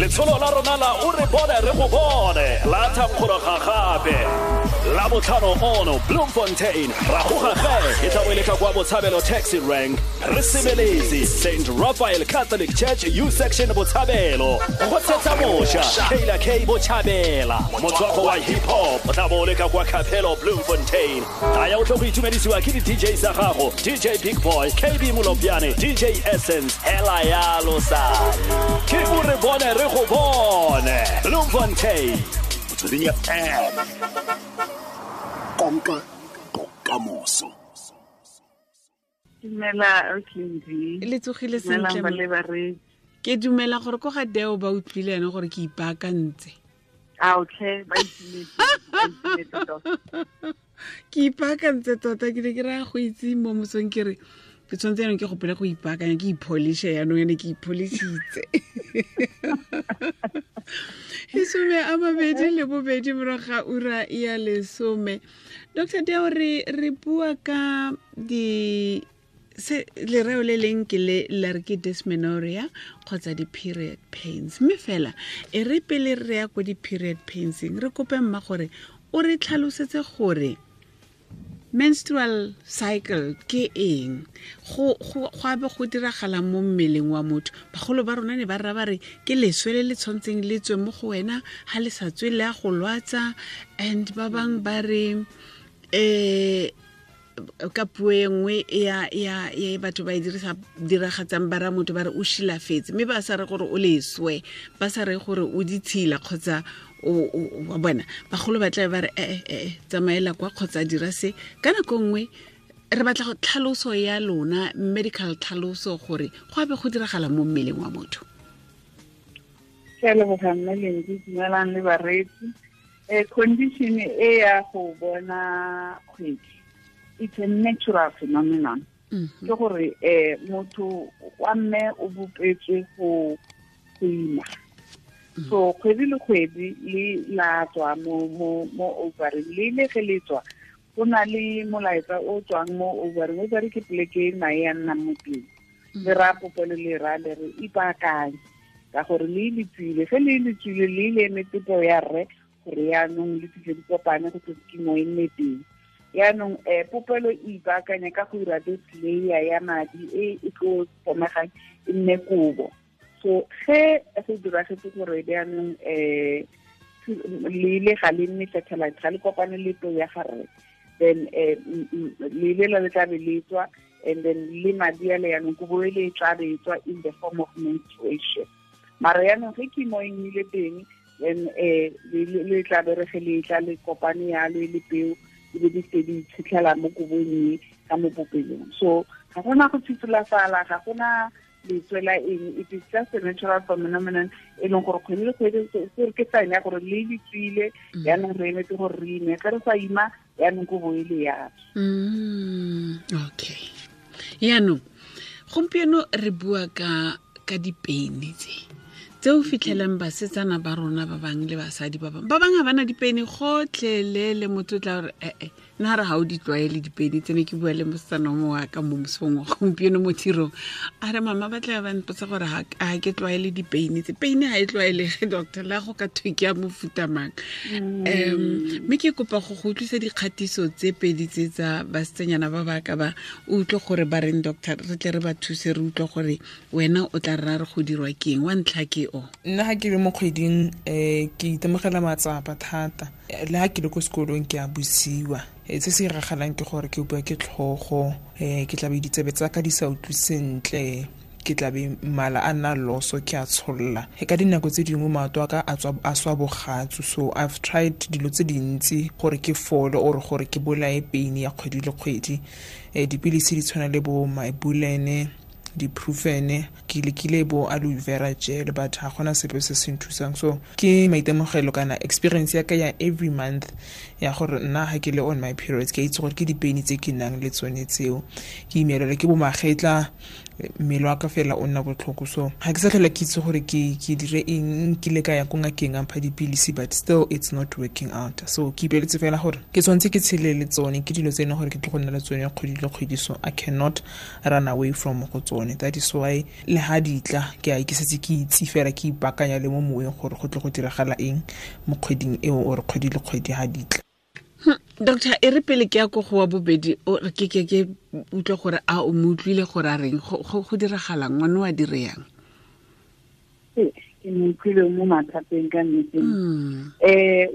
Letsholo la rona la O re bone re go bone la thankgologa gape la botlhano ono Bloemfontein ra goga ge e tla bo e le ka kwa Botshabelo taxi rank re sebeletse St Raphael Catholic Church U section Botshabelo go tshetsa mosha Kayla K Botshabela motswako wa hip hop o tla bo o le ka kwa Capello Bloemfontein. Taya o tlo go itumedisiwa ke di-DJ tsa gago DJ Big Boy, KB Molopjane, DJ Essence, hela yalo sa ke o re bone re go bone Bloemfontein. Motsweding FM, konka bokamoso. Dumela Ausi. Le tsogile sentle. Dumelang ba le bareetsi. Ke dumela gore ko ga Deo ba utlwile ene gore ke ipaakantse. A okay, ba itumetse, ba itumetse tota. Ke ipaakantse tota, ke ne ke raya go itse mo mosong ke re ke tshwanetse yanong ke gopole go ipaakanya, ke ipholishe yanong ene ke ipholisitse. 22 morago ga ura ya 10. Doctor Deo, re bua ka di se lereo le leng ke le la re ke dysmenorrhea kgotsa di-period pains, mme fela e re pele re ya ko di-period painseng re kope mma gore o re tlhalosetse gore menstrual cycle ke eng, go abe go diragala mo mmeleng wa motho. Bagolo ba rona ne ba rra ba re ke leswe le le tshwantseng le tswe mo go wena, ha le sa tswe le a go lwatsa. And ba bang ba re ka puo e nngwe ya batho ba e diragatsang ba ra motho ba re o shilafetse, mme ba sa re gore o leswe, ba sa re gore o ditshila kgotsa o wa bona. Bagolo ba tla ba re tsamaela kwa kgotsa dira se. Ka nako nngwe re batla go tlhaloso ya lona, medical tlhaloso, gore go abe go diragala mo mmeleng wa motho. Ke a leboga mme Lendi, dumelang le bareetsi. Condition e ya go bona kgwedi, it's a natural phenomenon. Ke gore motho wa mme o bopetswe go ima. So kgwedi le kgwedi le la tswa mo ovary, le le ge le tswa go na le molaetsa o tswang mo ovary. Ovary ke poleke e mae a nnang mo teng. Le raya popelo le raya le re ipaakanye ka gore le le tswile. Ge le le tswile le le emetse peo ya rre gore yaanong le fitlhe di kopane go tle kimo e nne teng. Yaanong popelo e ipaakanya ka go dira this layer ya madi e e tlo fomegang e nne kobo. So ge go diragetse gore jaanong le ile ga le nne satellite, ga le kopane le peo ya ga rre, then le ile la le tla be le tswa, and then le madi a le yaanong kobo e le e tla be e tswa in the form of menstruation. Mara yaanong ge kimo e nnile teng, then le tla be re ge le tla le kopane yalo e le peo, di be di se di itshitlhela mo kobong e ka mo popelong. So ga gona go thitholafala, ga gona letswe la eng, it is just a natural phenomenon e leng gore kgwedi le kgwedi se ke sign ya gore le le tswile, yaanong re emetse gore re ime. Ge re sa ima, yaanong kobo e le ya tswa. Okay. Yaanong gompieno re bua ka dipeine tse o fitlhelang basetsana ba rona ba bang le basadi ba bang. Ba bang ha bana dipeine gotlhelele, motho o tla re, nna re ha o di tlwaele dipeine tsene. Ke bua le mosetsana o mongwe wa ka mo mosong wa gompieno mo tirong, a re mama ba tla ba mpotsa gore ha ke tlwaele dipeine tse. Peine ha e tlwaelege, doctor, la go ka thwe ke ya mofuta mang. Mme ke kopa go go utlwisa dikgatiso tse pedi tse tsa basetsanyana ba ba ka ba, o utlwe gore ba reng, doctor, re tle re ba thuse, re utlwe gore wena o tla rra re go dirwa ke eng. Wa ntlha ke o. Nna ha ke le mo kgweding, ke itemogela matsapa thata. Le ha ke le ko sekolong ke a busiwa. Se se iragalang ke gore ke bua ke tlhogo, ke tla be ditsebe tsa ka di sa utlwe sentle, ke tla be mala a nna loso, ke a tsholla. Ka dinako tse dingwe maoto a ka a swa bogatsu. So I've tried dilo tse dintsi gore ke fole or gore ke bolaye pain ya kgwedi le kgwedi. Dipilisi di tshwana le bo Mybulene, di-Brufen, ke lekile bo aloe vera gel, but ga gona sepe se se nthusang. So ke maitemogelo kana experience ya ka ya every month ya gore nna ha ke le on my periods, ke itse gore ke dipeini tse ke nang le tsone tseo. Ke imelelwa ke bo magetla, Mmele wa ka fela o nna botlhoko, so ga ke sa tlhola ke itse gore ke dire eng. Nkile ka ya ko ngakeng a mpha dipilisi, but still it's not working out. So ke ipeletse fela gore ke tshwanetse ke tshele le tsone, ke dilo tse e leng gore ke tlo go nna le tsone kgwedi le kgwedi, so I cannot run away from go tsone. That is why le ha di tla ke a ke setse ke itse fela, ke ipaakanya le mo moweng gore go tle go diragala eng mo kgweding eo or kgwedi le kgwedi ha di tla. Doctor, e re pele ke ya ko go wa bobedi, o re ke ke utlwe gore a o mo utlwile gore a reng, go diragalang, ngwane wa dire yang? Ke mo utlwile mo mathateng ka nnete.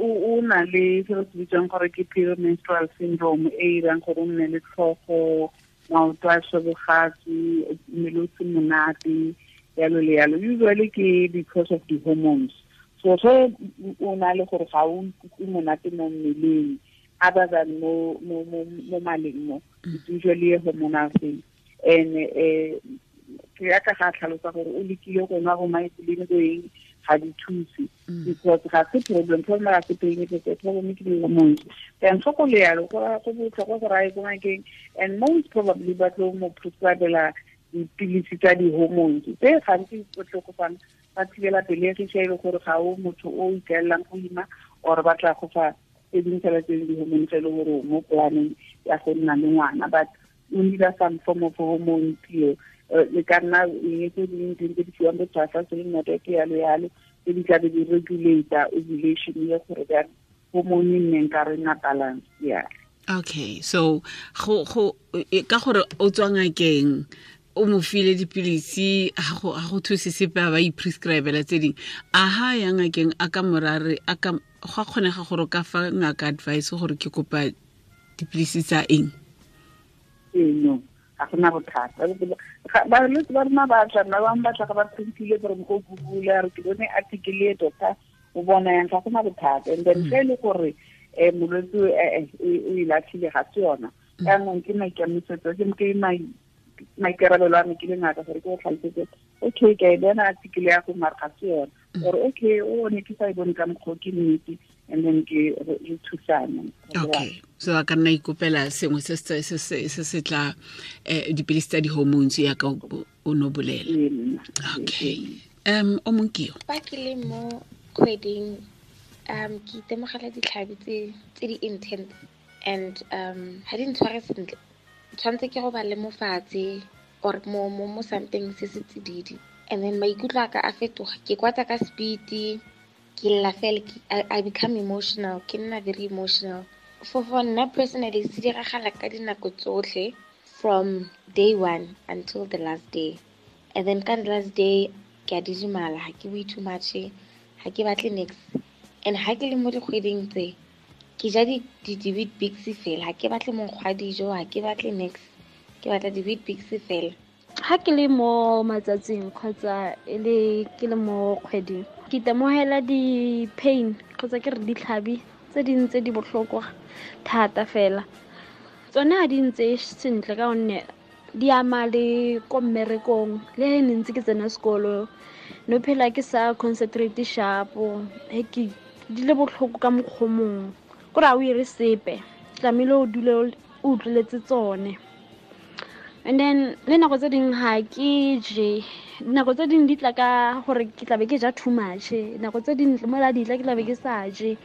O na le se re se bitswang gore ke premenstrual syndrome, e irang gore o nne le tlhogo, maoto a shebogatsi, mmele o se monate, yalo le yalo. Usually ke because of the hormones. So ge o na le gore ga o ikutlwe monate mo mmeleng, other than mo maleng mo, it's usually a hormonal thing. And ke ya ka ga tlhalosa gore o lekile go nwa go maipoleng go eng, ga di thuse, because ga se problem ga se pain, ke problem ke di-hormones. Then so go le yalo, go botlhokwa gore a ye ko ngakeng, and most probably ba tlo mo prescribela dipilisi tsa di-hormones tse gantsi o tlo go fang ba thibela pelegi ge e le gore ga o motho o ikaelelang go ima, or ba tla go fa tse dingwe fela tse di-hormone tse e le gore mo planeng ya go nna le ngwana, but o need some form of hormone pill. Le ka nna eng tse dingwe tse di fiwang bo tshwasa se le ke yalo yalo, tse di tlabe di regulate ovulation ye gore ba hormone e nneng ka re nna balance. Yeah. Okay, so go ka gore o tswa ngakeng, o mo file dipilisi, ga go thuse sepe, a ba i-prescribela tse dingwe. A ha ya ngakeng a ka morare, a ka go a kgonega gore o ka fa ngaka advice gore ke kopa dipilisi tsa eng? No, ga gona bothata. Balwetse ba rona ba tla, ba bangwe ba tla ga ba printile gore go Google, a re ke bone article e doctor o bona yang, ga gona bothata. And then ge e le gore molwetse o e latlhile, ga se yona. Jaanong ke maikemisetso, ke maikarabelo a me ke le ngaka gore ke go tlhalosetse, okay, ke a e bona article ya go, mare ga se yona. Or okay, o ne ke sa e bone ka mokgwa, ke nnete, and then ke re thusane. Okay, so a ka nna ikopela sengwe se se tla dipilisi tsa di-hormones ya ka o no bolela. Okay. O mongwe ke yo. Fa ke le mo kgweding, ke itemogela ditlhabi tse di intense, and ga di ntshware sentle. Tshwanetse ke go ba le mofatshe or mo something se se tsididi, and then maikutlo a ka a fetoga, ke kwata ka speed, ke lla fela, I become emotional, ke nna very emotional. For nna personally, se diragala ka dinako tsotlhe from day one until the last day. And then ka the last day ke a didimala, ha ke bue too much, ha ke batle niks. And ha ke le mo dikgweding tse, ke ja di-Weet-Bix fela, ha ke batle monkgo wa dijo, ha ke batle niks, ke batla di-Weet-Bix fela. Ha ke le mo matsatsing kgotsa e le ke le mo kgweding, ke itemogela di-pain kgotsa ke re ditlhabi tse dingwe tse di botlhokwa thata fela. Tsone ha di ntse sentle ka gonne di ama le ko mmerekong, le he ne ntse ke tsena sekolo, no phela ke sa concentrate sharp, he ke di le botlhoko ka mokgwa o mongwe, kore ha o ire sepe, tlamehile o dule o utlweletse tsone. And then le nako tse dingwe ha ke je, nako tse dingwe di tla ka gore ke tlabe ke ja too much, nako tse dingwe mola di tla ke tlabe ke sa je.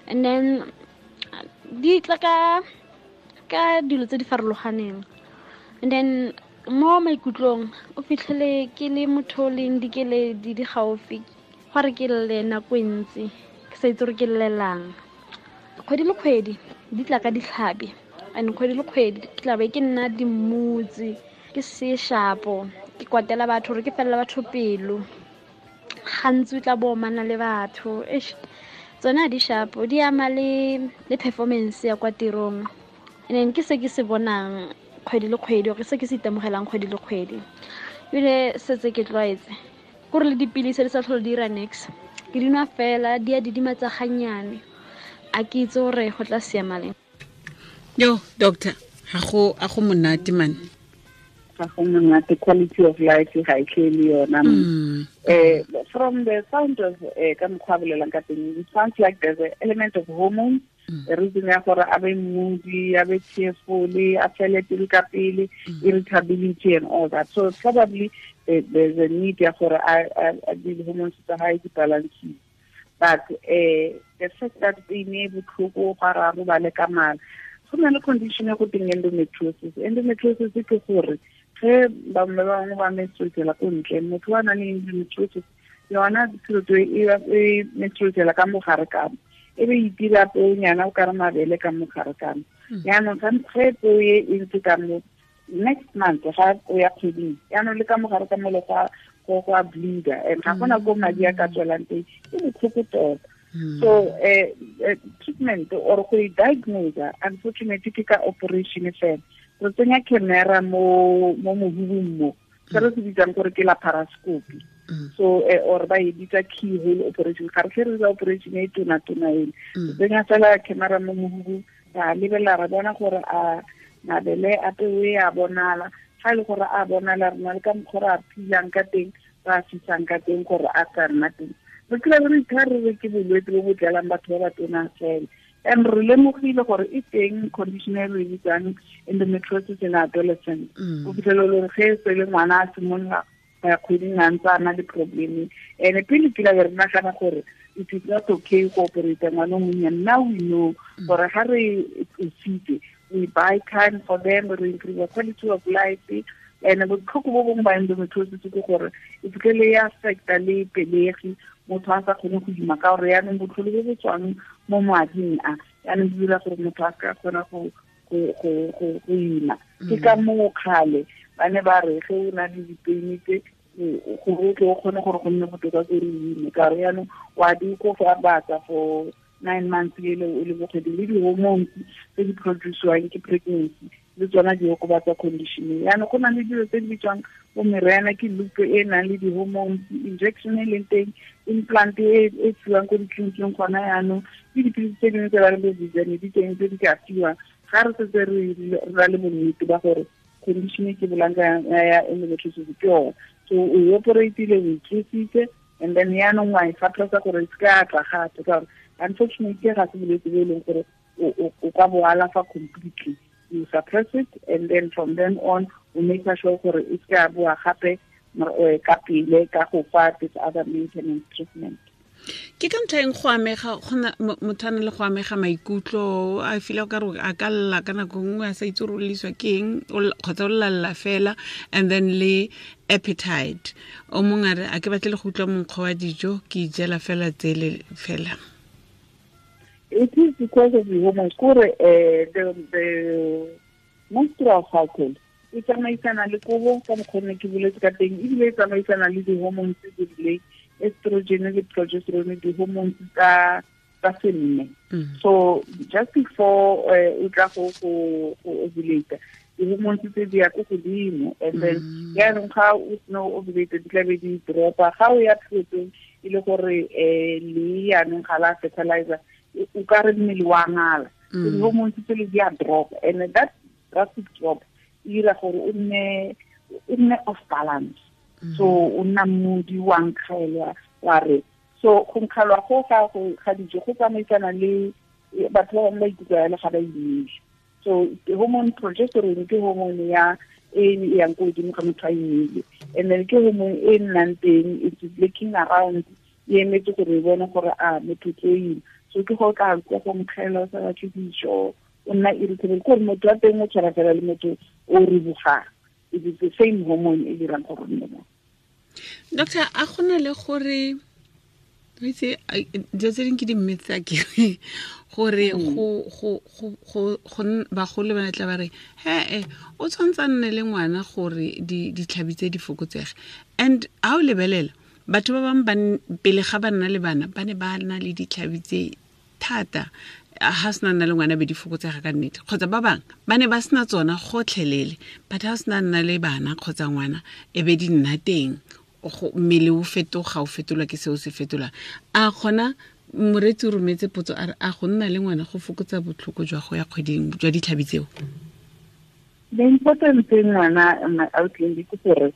And then di tla ka dilo tse di farologaneng. And then mo maikutlong o fitlhele ke le motho o leng dikeledi di gaufi, gore ke lle nako e ntsi, ke sa itse gore ke llelang. Kgwedi le kgwedi di tla ka ditlhabi, and kgwedi le kgwedi ke tlabe ke nna dimmutse, ke se shapo, ke kwatela batho gore ke felela batho pelo. Gantsi o tla bo omana le batho. Eish, tsone ha di shapo, di ama le performance ya kwa tirong. And then ke se ke se bonang kgwedi le kgwedi, or se ke se itemogelang kgwedi le kgwedi. Ebile setse ke tlwaetse kore le dipilisi di sa tlhole di dira niks, ke di nwa fela, di a didimatsa gannyane. A ke itse gore go tla siama leng. Yo, doctor, ga go monate man. Ga go monate, quality of life ga e tle le yona. From the sound of ka mokgwa a bolelang ka teng, it sounds like there's an element of hormones. The reason ya gore a be moody, a be tearful, a fele pelo ka pele, irritability and all that. So probably there's a need ya gore a di-hormones tsa hae di balance. But the fact that pain e botlhoko ga ra robale ka mala, go na le condition e go teng endometriosis. Endometriosis ke gore ge ba bangwe ba menstruatela ko ntle, motho wa nang le endometriosis yona tshilo e menstruatela ka mogare ka mo, e be itira peonyana o ka re mabele ka mogare ka mo. Yaanong ge peo e ntse ka mo, next month ga o ya kgweding, yaanong le ka mogare ka mole go a bleeder, and ga gona ko madi a ka tswelang teng, e botlhoko tota. So treatment or go e diagnose, unfortunately ke ka operation fela. Re tsenya camera mo mohubung mo, se re se bitsang gore ke laparoscopy. So or ba e bitsa keyhole operation. Ga re tle re dira operation e tona-tona ele. Re tsenya fela camera mo mohubung, ra lebelela ra bona gore a mabele a peo e a bonala. Ga e le gore a bonala, re na le ka mokgwa re a philang ka teng, re a fisang ka teng gore a sa nna teng. Re kry re itha re re ke bolwetse bo bo tlelang batho ba ba tona fela. And re lemogile gore e teng condition e re bitsang endometriosis in adolescent. O fitlhela le gore ge e se le ngwana a simolola go ya kgweding a ntse a na le problem. And pele ke la re nagana gore it is not okay go operate ngwana o monnyane. Now we know gore ga re tlositse, we buy time for them, we improve the quality of life. And botlhoko bo bongwe ba endometriosis ke gore e fitlhele e affecta le pelegi, motho a sa kgone go ima ka gore yaanong botlhole bo bo tswang mo mading a yaanong di dira gore motho a ka kgona go ima. Ke ka moo kgale ba ne ba re ge o na le dipeini tse gore o tle o kgone gore go nne botoka ko re ime, ka gore yaanong wa di kofatsa for 9 months ele o le bokgwedi, le di-hormones tse di produce-wang ke pregnancy le tsona di okobatsa condition. Yaanong go na le dilo tse di bitswang bo meriana, ke loop e nang le di-hormones, injection e leng teng, implant e fiwang ko ditleliniking gona yaanong, le dipilisi tse dingwe tse ba leng bo Viviane di teng tse di ka fiwang. Ga re setse re ra le bonnete ba gore condition e ke bolang ka ya endometriosis ke yone. So o operatile, o itlositse, and then yaanong wa e suppressa gore e se ka tla gape, ka gore unfortunately ga se bolwetse bo e leng gore o ka bo alafa completely. You suppress it, and then from then on o make sure gore e se ka boa gape ka pele ka go fa this other maintenance treatment. Ke ka ntlha eng go amega gona motho a na le go amega maikutlo, a feel ka re a ka lla ka nako nngwe a sa itse gore o lliswa ke eng, kgotsa o llalla fela, and then le appetite. O mongwe a re a ke batle le go utlwa monkgo wa dijo, ke ijela fela tsele fela. It is because of the hormones. Kore the menstrual cycle e tsamaisana le kobo ka mokgwa ne ke boletse ka teng, ebile e tsamaisana le di-hormones tse di rileng, estrogen le progesterone, di-hormones tsa senne. So just before o tla go ovulate, di-hormones tse di ya ko godimo, and then yaanong ga o sena o ovulate di tla be di dropa. Ga o ya periodong e le gore le yaanong ga la fertilizer, o ka re mmele wa ngala, di-hormones tse le di a drop, and that drastic drop e dira gore o nne off balance. So o nna moody, wa nkgelwa wa re. So go nkgelwa go ga dijo go tsamaisana le batho ba bangwe ba ikutlwa jalo ga ba imile. So hormone progesterone ke hormone ya e yang ko godimo ga motho a imile, and then ke hormone e nnang teng, it's looking around, e emetse gore e bone gore a motho tlo ima. So ke go ka utlwa go nkgelwa o sa batle dijo, o nna irritable, ke gore motho wa teng o tshwana fela le motho o ribogang. It is the same hormone e dirang gore nne mo. Doctor, a gona le gore itse dilo tse dingwe ke di-myths a kere gore go bagolo ba tla ba re he o tshwanetse a nne le ngwana gore ditlhabi tse di fokotsege. And ha o lebelela batho ba bangwe pele ga ba nna le bana ba ne ba na le ditlhabi tse thata, ha sena nna le ngwana be di fokotsega ka nnete, kgotsa ba bangwe ba ne ba sena tsona gotlhelele, but ha sena nna le bana kgotsa ngwana e be di nna teng, mmele o fetoga, o fetolwa ke seo se fetolang. A kgona moreetsi o rometse potso a re a go nna le ngwana go fokotsa botlhoko jwa go ya kgweding jwa ditlhabi tseo? The important thing ngwana outline ke gore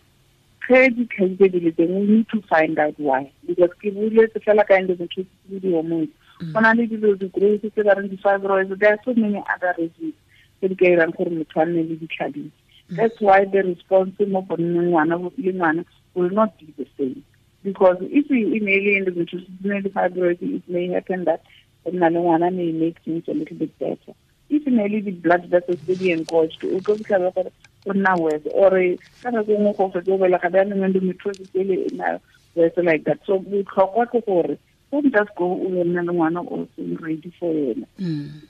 ge ditlhabi tse di le teng, we need to find out why, because ke boletse fela ka endometriosis le di-hormones. Go na le dilo di-growth tse ba reng di-fibroids. There are so many other reasons tse di ka irang gore motho a nne le ditlhabisi. That's why the response mo go nneng ngwana le ngwana will not be the same, because if we e ne le endometriosis, ne le fibroid, it may happen that go nna le ngwana may make things a little bit better. If ne le di-blood vessels tse di engorged, o tlo fitlhela gore o nna worse, or ka nako nngwe go fetse o belega bjaanong endometriosis ele e nna worse like that. So botlhokwa ke gore don't just go o yo nna le ngwana o seng ready for yena.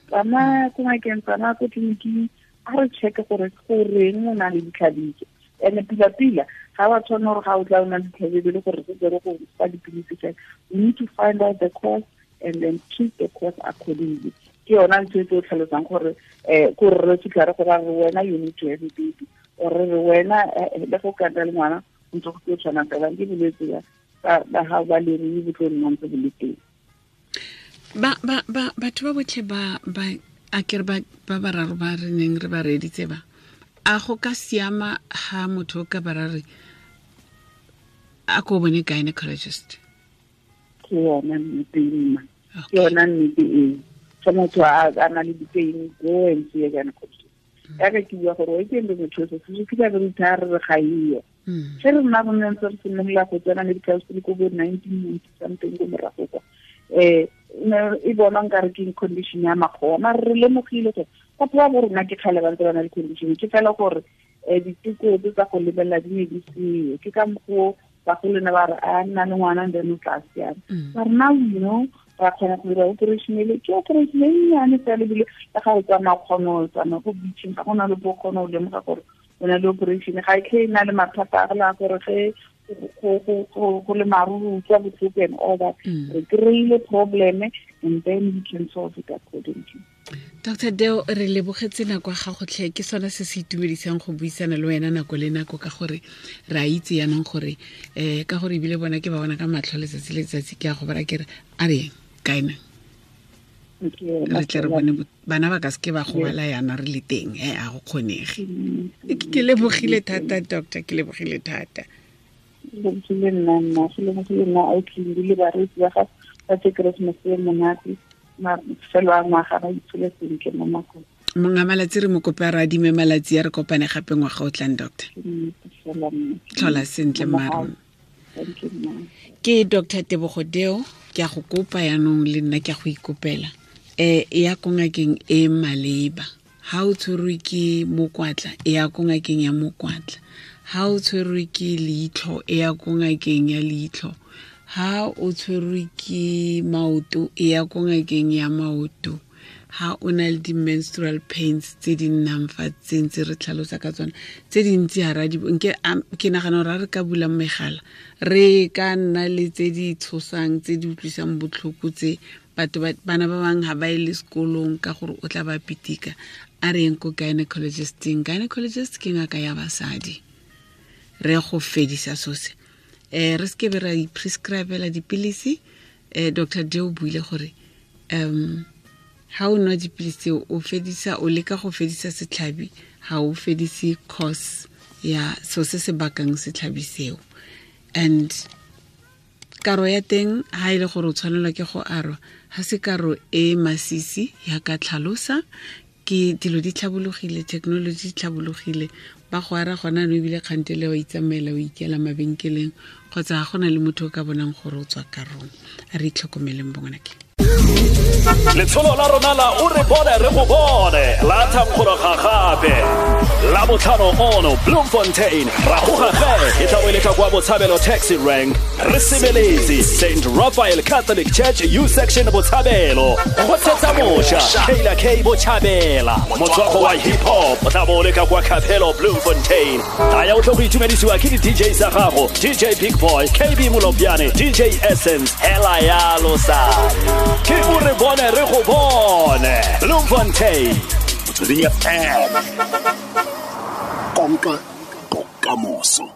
Tsamaya ko ngakeng, tsamaya ko tleliniking, a re check gore goreng o na le ditlhabiso. And pila-pila ga wa tshwana gore ga o tla o na le ditlhabiso le gore setse re go fa dipilisi fela. We need to find out the cause and then treat the cause accordingly. Ke yona ntho e tlo tlhalosang gore ko re fitlha re go ra re wena you need to have a baby, or re wena le go ka nna le ngwana o ntse go tlo tshwana fela ke bolwetse ba ba gago ba lerui bo tlo nna ntse bo le teng. Ba ba ba batho ba botlhe ba ba a kere ba ba bararo ba re neng re ba reeditse ba a go ka siama ha motho o ka ba ra re a ko bone gynecologist? Ke yona nnete mma, ke yona nnete eo. Fa motho a na le di-pain, go and see a gynecologist. Yaka ke bua gore o ke endometriosis, se fitlha re rutha re re ga eyo. Ge re nna re ntse re simolola go tsena medical school ko bo 1990 something ko morago kwa, e bonwa nkare ke condition ya makgowa, mare re lemogile gore batho ba bo rona ke kgale ba ntse ba na le condition. Ke fela gore diteko tse tsa go lebelela di ne di seo, ke ka mokgwa bagolo ne ba re a nna le ngwana then o tla siama. Mare now you know ra kgona go dira operation ele, ke operation e nnyane fela, ebile le ga o tsamaya kgona o tsamaya ko beaching, ga gona le bo kgona o lemoga gore o na le operation. Ga e tlhe e na le mathata a la gore ge go le maru o utlwa botlhoko and all that. Re kry-ile problem and then we can solve it accordingly. Dr Deo, re lebogetse nako ya gago tlhe. Ke sone se se itumedisang go buisana le wena nako le nako, ka gore re a itse yaanong gore ka gore ebile bona ke ba bona ka matlho letsatsi le letsatsi. Ke a go bara ke re a re kaena re tle re bone bana ba ka seke ba gobala yana re le teng, a go kgonege. Ke lebogile thata doctor, ke lebogile thata. Lebogile nna mma, go lebogile nna autlindi le bareetsi ba gago ba tse Christmas e monate, mafelo a ngwaga ba itshole sentle mo makong. Monga malatsi re mo kope a re adime malatsi a re kopane gape ngwaga o tlang, doctor. Tlhola sentle mma. Thank you, mma. Ke Dr Tebogo Deo, ke a go kopa yaanong le nna ke a go ikopela. E ya ko ngakeng e maleba. Ha o tshwerwe ke mokwatla, e ya ko ngakeng ya mokwatla. Ha o tshwerwe ke leitlho, e ya ko ngakeng ya leitlho. Ha o tshwerwe ke maoto, e ya ko ngakeng ya maoto. Ha o na le di-menstrual pains tse di nnang fa tse ntse re tlhalosa ka tsona tse dintsi, ha ra di nke ke nagana gore ha re ka bula megala re ka nna le tse di tshosang, tse di utlwisang botlhoko, tse batho bana ba bangwe ha ba ye le sekolong ka gore o tla ba pitika. A re yeng ko gynecologisteng. Gynecologist ke ngaka ya basadi, re go fedisa sose. Re seke be ra i-prescribela dipilisi. Dr Deo buile gore ha o nwa dipilisi tseo o fedisa, o leka go fedisa setlhabi, ha o fedise cause ya so se se bakang setlhabi seo. And karo ya teng ha e le gore o tshwanelwa ke go arwa, ha se karo e masisi ya ka tlhalosa. Ke dilo di tlhabologile, technology di tlhabologile, ba go ara gona no ebile kgantele wa itsamaela o ikela mabenkeleng kgotsa ga gona le motho o ka bonang gore o tswa karong. A re itlhokomeleng bongwanake. Letsholo la rona la o re bone re go bone la thankgologa gape la botlhano ono Bloemfontein ra goga ge e tla bo e le ka kwa Botshabelo taxi rank re sebeletse St Raphael Catholic Church U section Botshabelo go tshetsa moša Kayla K Botshabela motswako wa hip hop o tla bo o le ka kwa Capello Bloemfontein. Taya o tlo go itumedisiwa ke di-DJ tsa gago, DJ Big Boy, KB Molopjane, DJ Essence, hela yalo sa ke o re bone re go bone Bloemfontein. Motsweding FM, konka bokamoso.